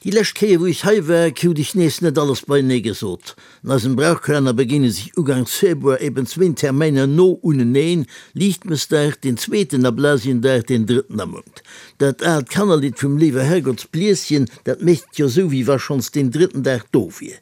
Déi lescht Kéier wou ech hei war, krut ech nees net alles beienee gesot. An eisem Brauchkalenner begéine sech ugangs Februar eben zwéin Termäiner no uneneen, Liichtmëssdag, deen zweeten, a Blasiendag, deen drëtten am Mount. Dat aalt Kannerlidd vum Léiwe Herrgottsblieschen, dat mécht jo sou wéi wa schonns deen drëtten Dag do wier.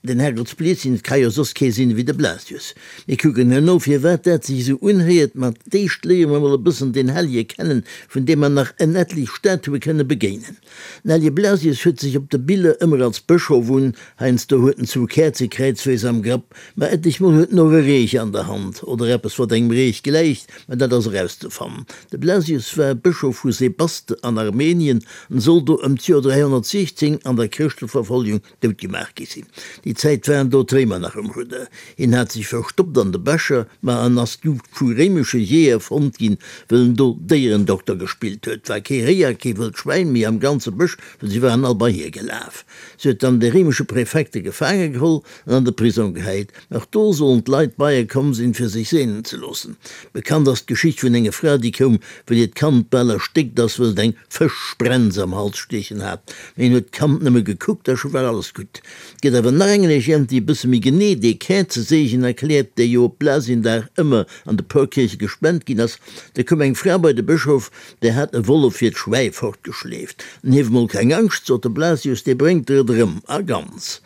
Den Herrgottsblieschen, et ka jo soss kee sinn ewéi de Blasius. Mir kucken herno firwat dat sech esou unhéiert, ma d'éischt léiere mer mol e bëssen den Hellje kennen, vun deem mer nach en etlich Statue kënne begéinen. Den Hellje Blasius huet sech op de Biller ëmmer als Bëschof un, heiansdo huet en zwou Käerze kräizweis am Grapp, ma etlich mol huet en och e Reech an der Hand, oder eppes wat engem Reech gläicht, ma dat ass erauszefannen. De Blasius war Bëschof vu Sebaste an Armenien an soll do ëm d'Joer 316 an der Chrëschteverfolgung dout gemaach gi sinn. Déi Zäit waren do d'Réimer nach um Rudder. Hien hat sech verstoppt an de Bescher, ma en ass du vu réimesche Jeeër fonnt ginn, wëll en do Déierendokter gespillt huet. War kee Réi a kee wëllt Schwäin méi am ganze Bësch, wëll si waren all bei hie gelaf. Se huet dann de réimesche Präfekte gefaange geholl an an de Prisong gehäit. Nach do sollen d'Leit bei e komm sinn, fir sech seenen ze loossen. Bekannt ass d'Geschicht vun enger Fra, déi koum, wëll hiert Kand bal erstéckt ass, wëll et eng Fëschsprenz am Hals stiechen hat. Mee en huet d'Kand nëmme gekuckt a scho war alles gutt. Et gëtt awer nach eng Legend, déi e bësse méi genee dee Käerzeseegen erkläert, dee jo op Blasiendag ëmmer an de Porkierche gespent ginn ass. Da koum eng Fra bei de Bëschof, där hat e Wollef hiert Schwäi fortgeschleeft. En hief mol keng Angscht, sot de Blasius, dee bréngt der et erëm a ganz.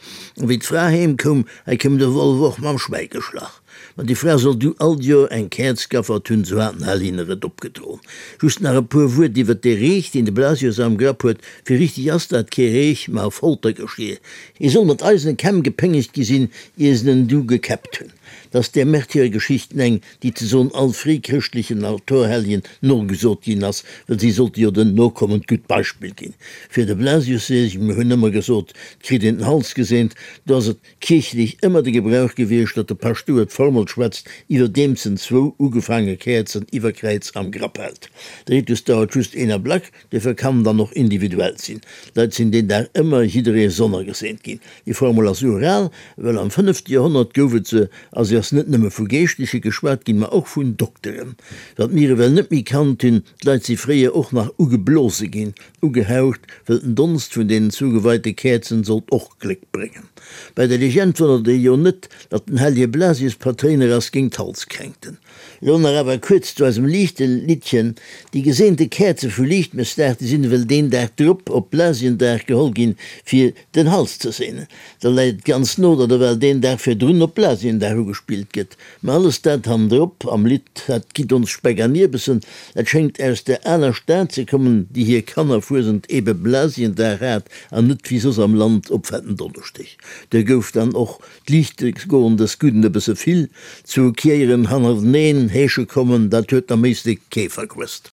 A wéi d'Fra heem koum, hei koum de Wollef och mam Schwäi geschlach. Ma déi Fra soll du all d'Joer eng Käerz gaffert hunn, sou hat den Hell hinne et opgedroen. Just nach e puer Wuert iwwert dee Reech, deen de Blasius am Grapp huet, Fir richtig ass dat kee Reech, ma e Foltergeschier. Hie soll mat eisene Kämm gepéngegt gi sinn, ier se en du gekäppt hunn. 't ass där Märtyrergeschichten eng, déi ze soen all fréichrëschtlechen Altorhelljen nogesot ginn ass, well si sollte jo den Nokommen d'gutt Beispill ginn. Fir de Blasiusseegen, mir hunn ëmmer gesot, 't kritt een den Hals geseent, do ass et kierchlech ëmmer de Gebrauch gewiescht, datt de Paschtouer d'Formel schwätzt, iwwerdeems en zwou ugefaange Käerzen iwwer Kräiz am Grapp hält. De Ritus dauert just een Ablack, duerfir kann en dann och individuell sinn. D'Leit sinn deen Dag ëmmer jidderee sonnergeseent ginn. Déi Formel ass ural, well am fënnefte Joerhonnert gouf et se, a se ass net nëmme vu Geeschtleche geschwat ginn, ma och vun Dokteren. Wat mir ewell net méi kannt hunn, d'Leit si fréier och nach ugeblose ginn, ugehaucht, wëll den Donst vun deenen zugeweite Käerzen sollt och Gléck bréngen. Bei der Legend wonnert ee jo net, datt den hellege Blasius Patréiner ass géint d'Halskränkten. Elo nach awer kuerz zu eisem Liichteliddchen, Déi geseente Käerze vu Liichtmëssdag, déi sinn ewell deen Dag drop op Blasiendag geholl ginn, fir den Hals ze seenen. Da läit et ganz no, datt ewell deen Dag virdrun op Blasiendag ugespillt gëtt. Mä alles dat hannendrop am Lidd, dat gitt ons Speck an Ierbessen, dat schéngt aus där aler Stad ze kommen, déi hir Kannerfuesent ebe Blasiendag hat an net wéi soss am Land op Fetten Donneschdeg. Do gouf dann och d'Liichtegoen des Gudden e bësse vill, zu Kiéieren hannerteneen heesche kommen, dat huet am Éislek kee verquësst.